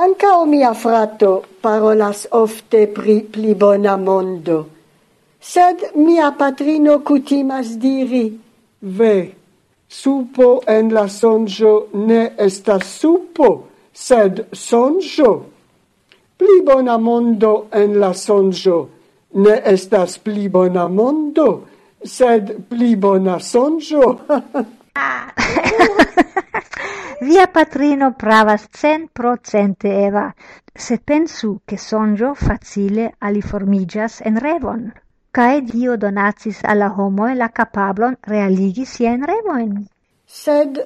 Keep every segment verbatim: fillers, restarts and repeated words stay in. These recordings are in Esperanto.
Ankaŭ mia frato parolas ofte pri pli bona mondo, sed mia patrino kutimas diri: "Ve, supo en la sonĝo ne estas supo, sed sonĝo. Pli bona mondo en la sonĝo ne estas pli bona mondo, sed pli bona sonĝo." Via patrino pravas centprocente, Eva. Sed pensu, ke sonĝo facile aliformiĝas en revon. Kaj Dio donacis al la homoj la kapablon realigi siajn revojn. Sed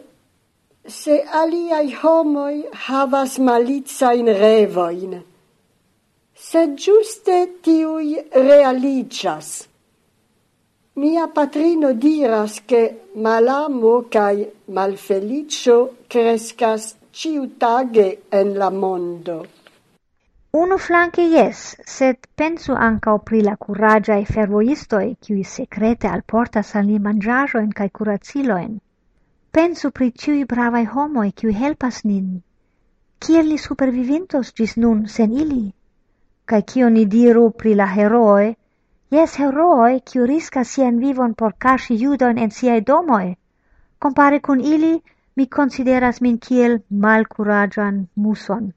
se aliaj homoj havas malicajn revojn, sed ĝuste tiuj realiĝas. Mia patrino diras, ke malamo kaj malfeliĉo kreskas ĉiutage en la mondo. Unu flanke jes, sed pensu ankaŭ pri la kuraĝaj fervojistoj, kiuj sekrete alportas al ni manĝaĵojn kaj kuracilojn. Pensu pri ĉiuj bravaj homoj, kiuj helpas nin. Kiel ni supervivintos ĝis nun sen ili? Kaj kio ni diru pri la herooj? Jes, herooj, kiu riskas sian vivon por kaŝi judojn en siaj domoj. Kompare kun ili, mi konsideras min kiel malkuraĝan muson.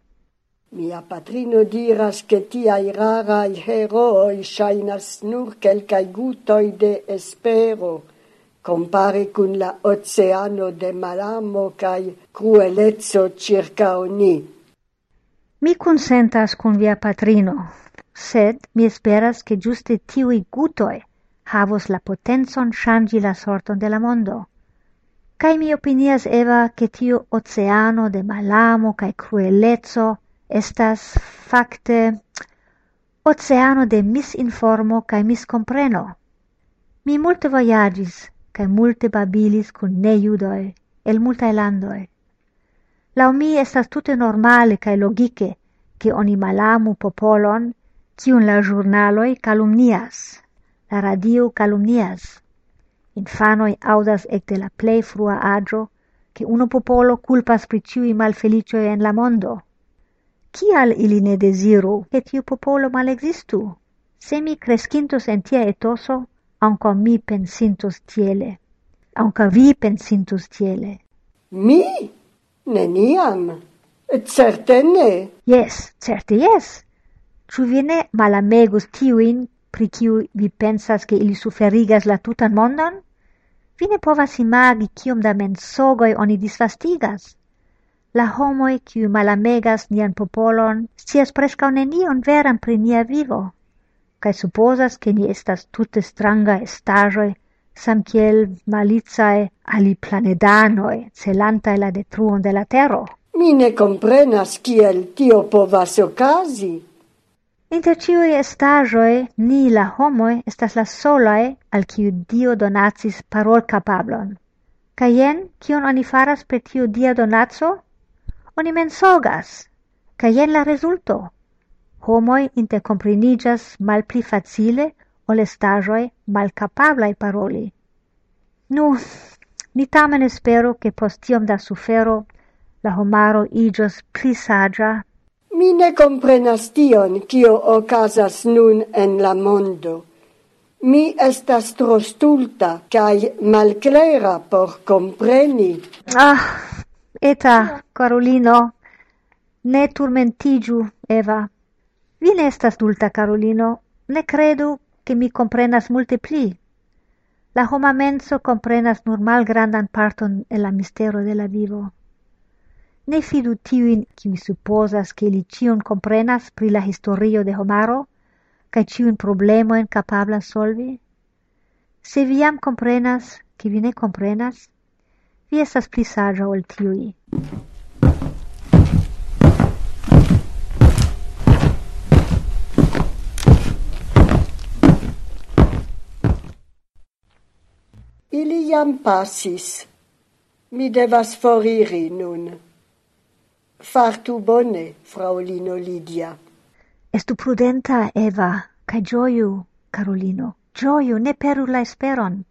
Mia patrino diras, ke tiaj raraj herooj ŝajnas nur kelkaj gutoj de espero, kompare kun la oceano de malamo kaj krueleco ĉirkaŭ ni. Mi konsentas kun via patrino, sed mi esperas, ke ĝuste tiuj gutoj havos la potencon ŝanĝi la sorton de la mondo. Kaj mi opinias, Eva, ke tiu oceano de malamo kaj krueleco estas fakte oceano de misinformo kaj miskompreno. Mi multe vojaĝis kaj multe babilis kun nejudoj el multaj landoj. Laŭ mi estas tute normale kaj logike, ke oni malamu popolon, kiun la ĵurnaloj kalumnias, la radio kalumnias. Infanoj aŭdas ekde la plej frua aĝo, ke unu popolo kulpas pri ĉiuj malfeliĉoj en la mondo. Kial ili ne deziru, ke tiu popolo malekzistu? Se mi kreskintos en tia etoso, ankaŭ mi pensintos tiele. Ankaŭ vi pensintos tiele. Mi? Neniam. Certe ne. Jes, certe jes. Ĉu vi ne malamegus tiujn, pri kiuj vi pensas, ke ili suferigas la tutan mondon? Vi ne povas imagi, kiom da mensogoj oni disvastigas. La homoj, kiuj malamegas nian popolon, scias preskaŭ nenion veran pri nia vivo, kaj supozas, ke ni estas tute stranga estaĵoj, samkiel malicaj aliplanedanoj, celantaj la detruon de la tero. Mi ne komprenas, kiel tio povas okazi. Inter ĉiuj estaĵoj, ni, la homoj, estas la solaj, al kiu Dio donacis parolkapablon. Kaj jen, kion oni faras per tiu Dia donaco? Oni mensogas. Kaj jen la rezulto. Homoj interkompreniĝas malpli facile ol estaĵoj malkapablaj paroli. Nu, ni tamen esperu, ke post tiom da sufero la homaro iĝos pli saĝa. Mi ne komprenas tion, kio okazas nun en la mondo. Mi estas tro stulta kaj malklera por kompreni. Ah, Eta, karulino, ne turmentiĝu, Eva. Vi ne estas stulta, karulino. Ne kredu, ke mi komprenas multe pli. La homa menso komprenas nur malgrandan parton el la mistero de la vivo. Ne fidu tiujn, kiuj supozas, ke ili ĉion komprenas pri la historio de homaro, kaj ĉiujn problemojn kapablas solvi. Se vi jam komprenas, ke vi ne komprenas, vi estas pli saĝa ol tiuj. Ili jam pasis. Mi devas foriri nun. Fartu bone, fraŭlino Lidia. Estu prudenta, Eva, kaj ĝoju, karulino. Ĝoju, ne peru la esperon.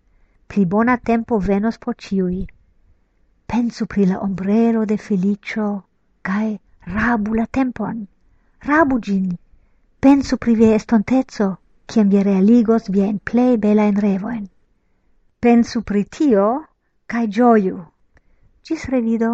Pli bona tempo venos por ĉiuj. Pensu pri la ombrelo de feliĉo kaj Rabu la tempon, rabu ĝin. Pensu pri via estonteco, kiam vi realigos viajn plej belajn revojn. Pensu pri tio, kaj ĝoju. Ĝis revido.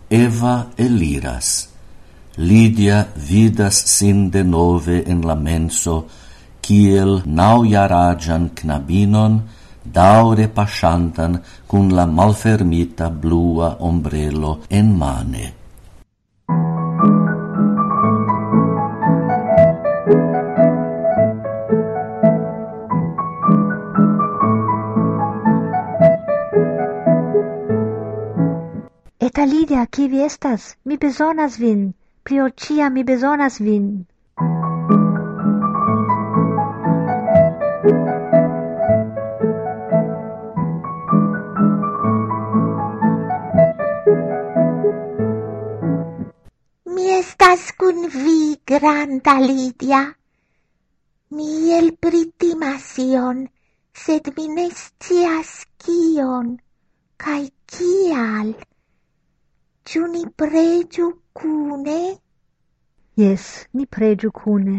Eva eliras. Lidia vidas sin denove en la menso, kiel naŭjaraĝan knabinon, daŭre paŝantan kun la malfermita blua ombrelo en mane. Eta Lidia, kie vi estas? Mi bezonas vin. Pli ol ĉiam mi bezonas vin. Mi estas kun vi, granda Lidia. Mi elpritimas ion, sed mi ne scias kion, kaj kial. Ĉu ni preĝu kune? Jes, ni preĝu kune.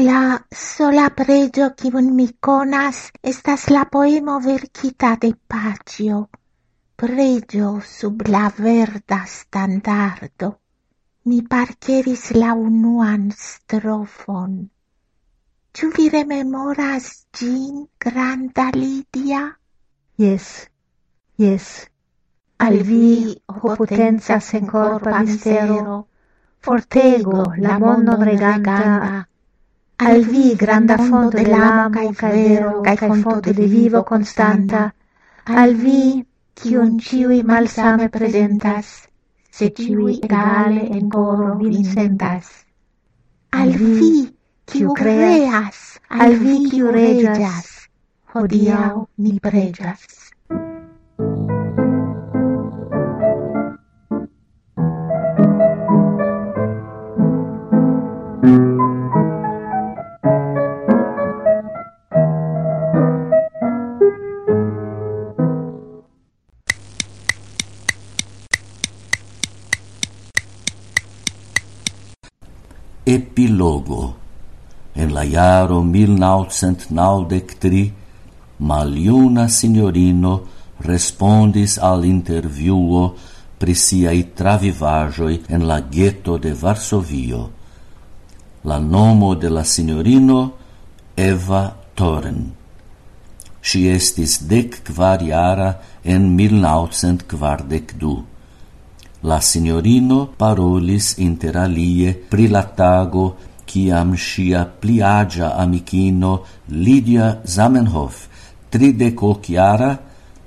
La sola preĝo, kiun mi konas, estas la poemo verkita de Paĉjo. Preĝo sub la verda standardo. Mi parkeris la unuan strofon. Ĉu vi rememoras ĝin, granda Lidia? Jes, jes. Al vi, ho potenca senkorpa mistero, fortego la mondon reganta, al vi, granda fonto de lamo kaj vero kaj fonto de vivo konstanta, al vi, kiun ĉiuj malsame prezentas, se ĉiuj egale en koro vin sentas. Al vi, kiu kreas, al vi, kiu reĝas, hodiaŭ ni preĝas. Epilogo. En la jaro mil naŭcent naŭdek tri, maljuna sinjorino respondis al intervjuo pri siaj travivaĵoj en la geto de Varsovio. La nomo de la sinjorino Eva Toren. Ŝi estis dek kvar jara en mil naŭcent kvardek du. La sinjorino parolis inter alie pri la tago, kiam ŝia pli aĝa amikino Lidia Zamenhof, tridek ok jara,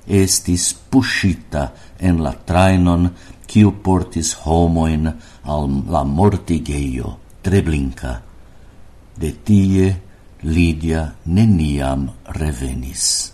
estis puŝita en la trajnon, kiu portis homojn al la mortigejo Treblinka. De tie Lidia neniam revenis.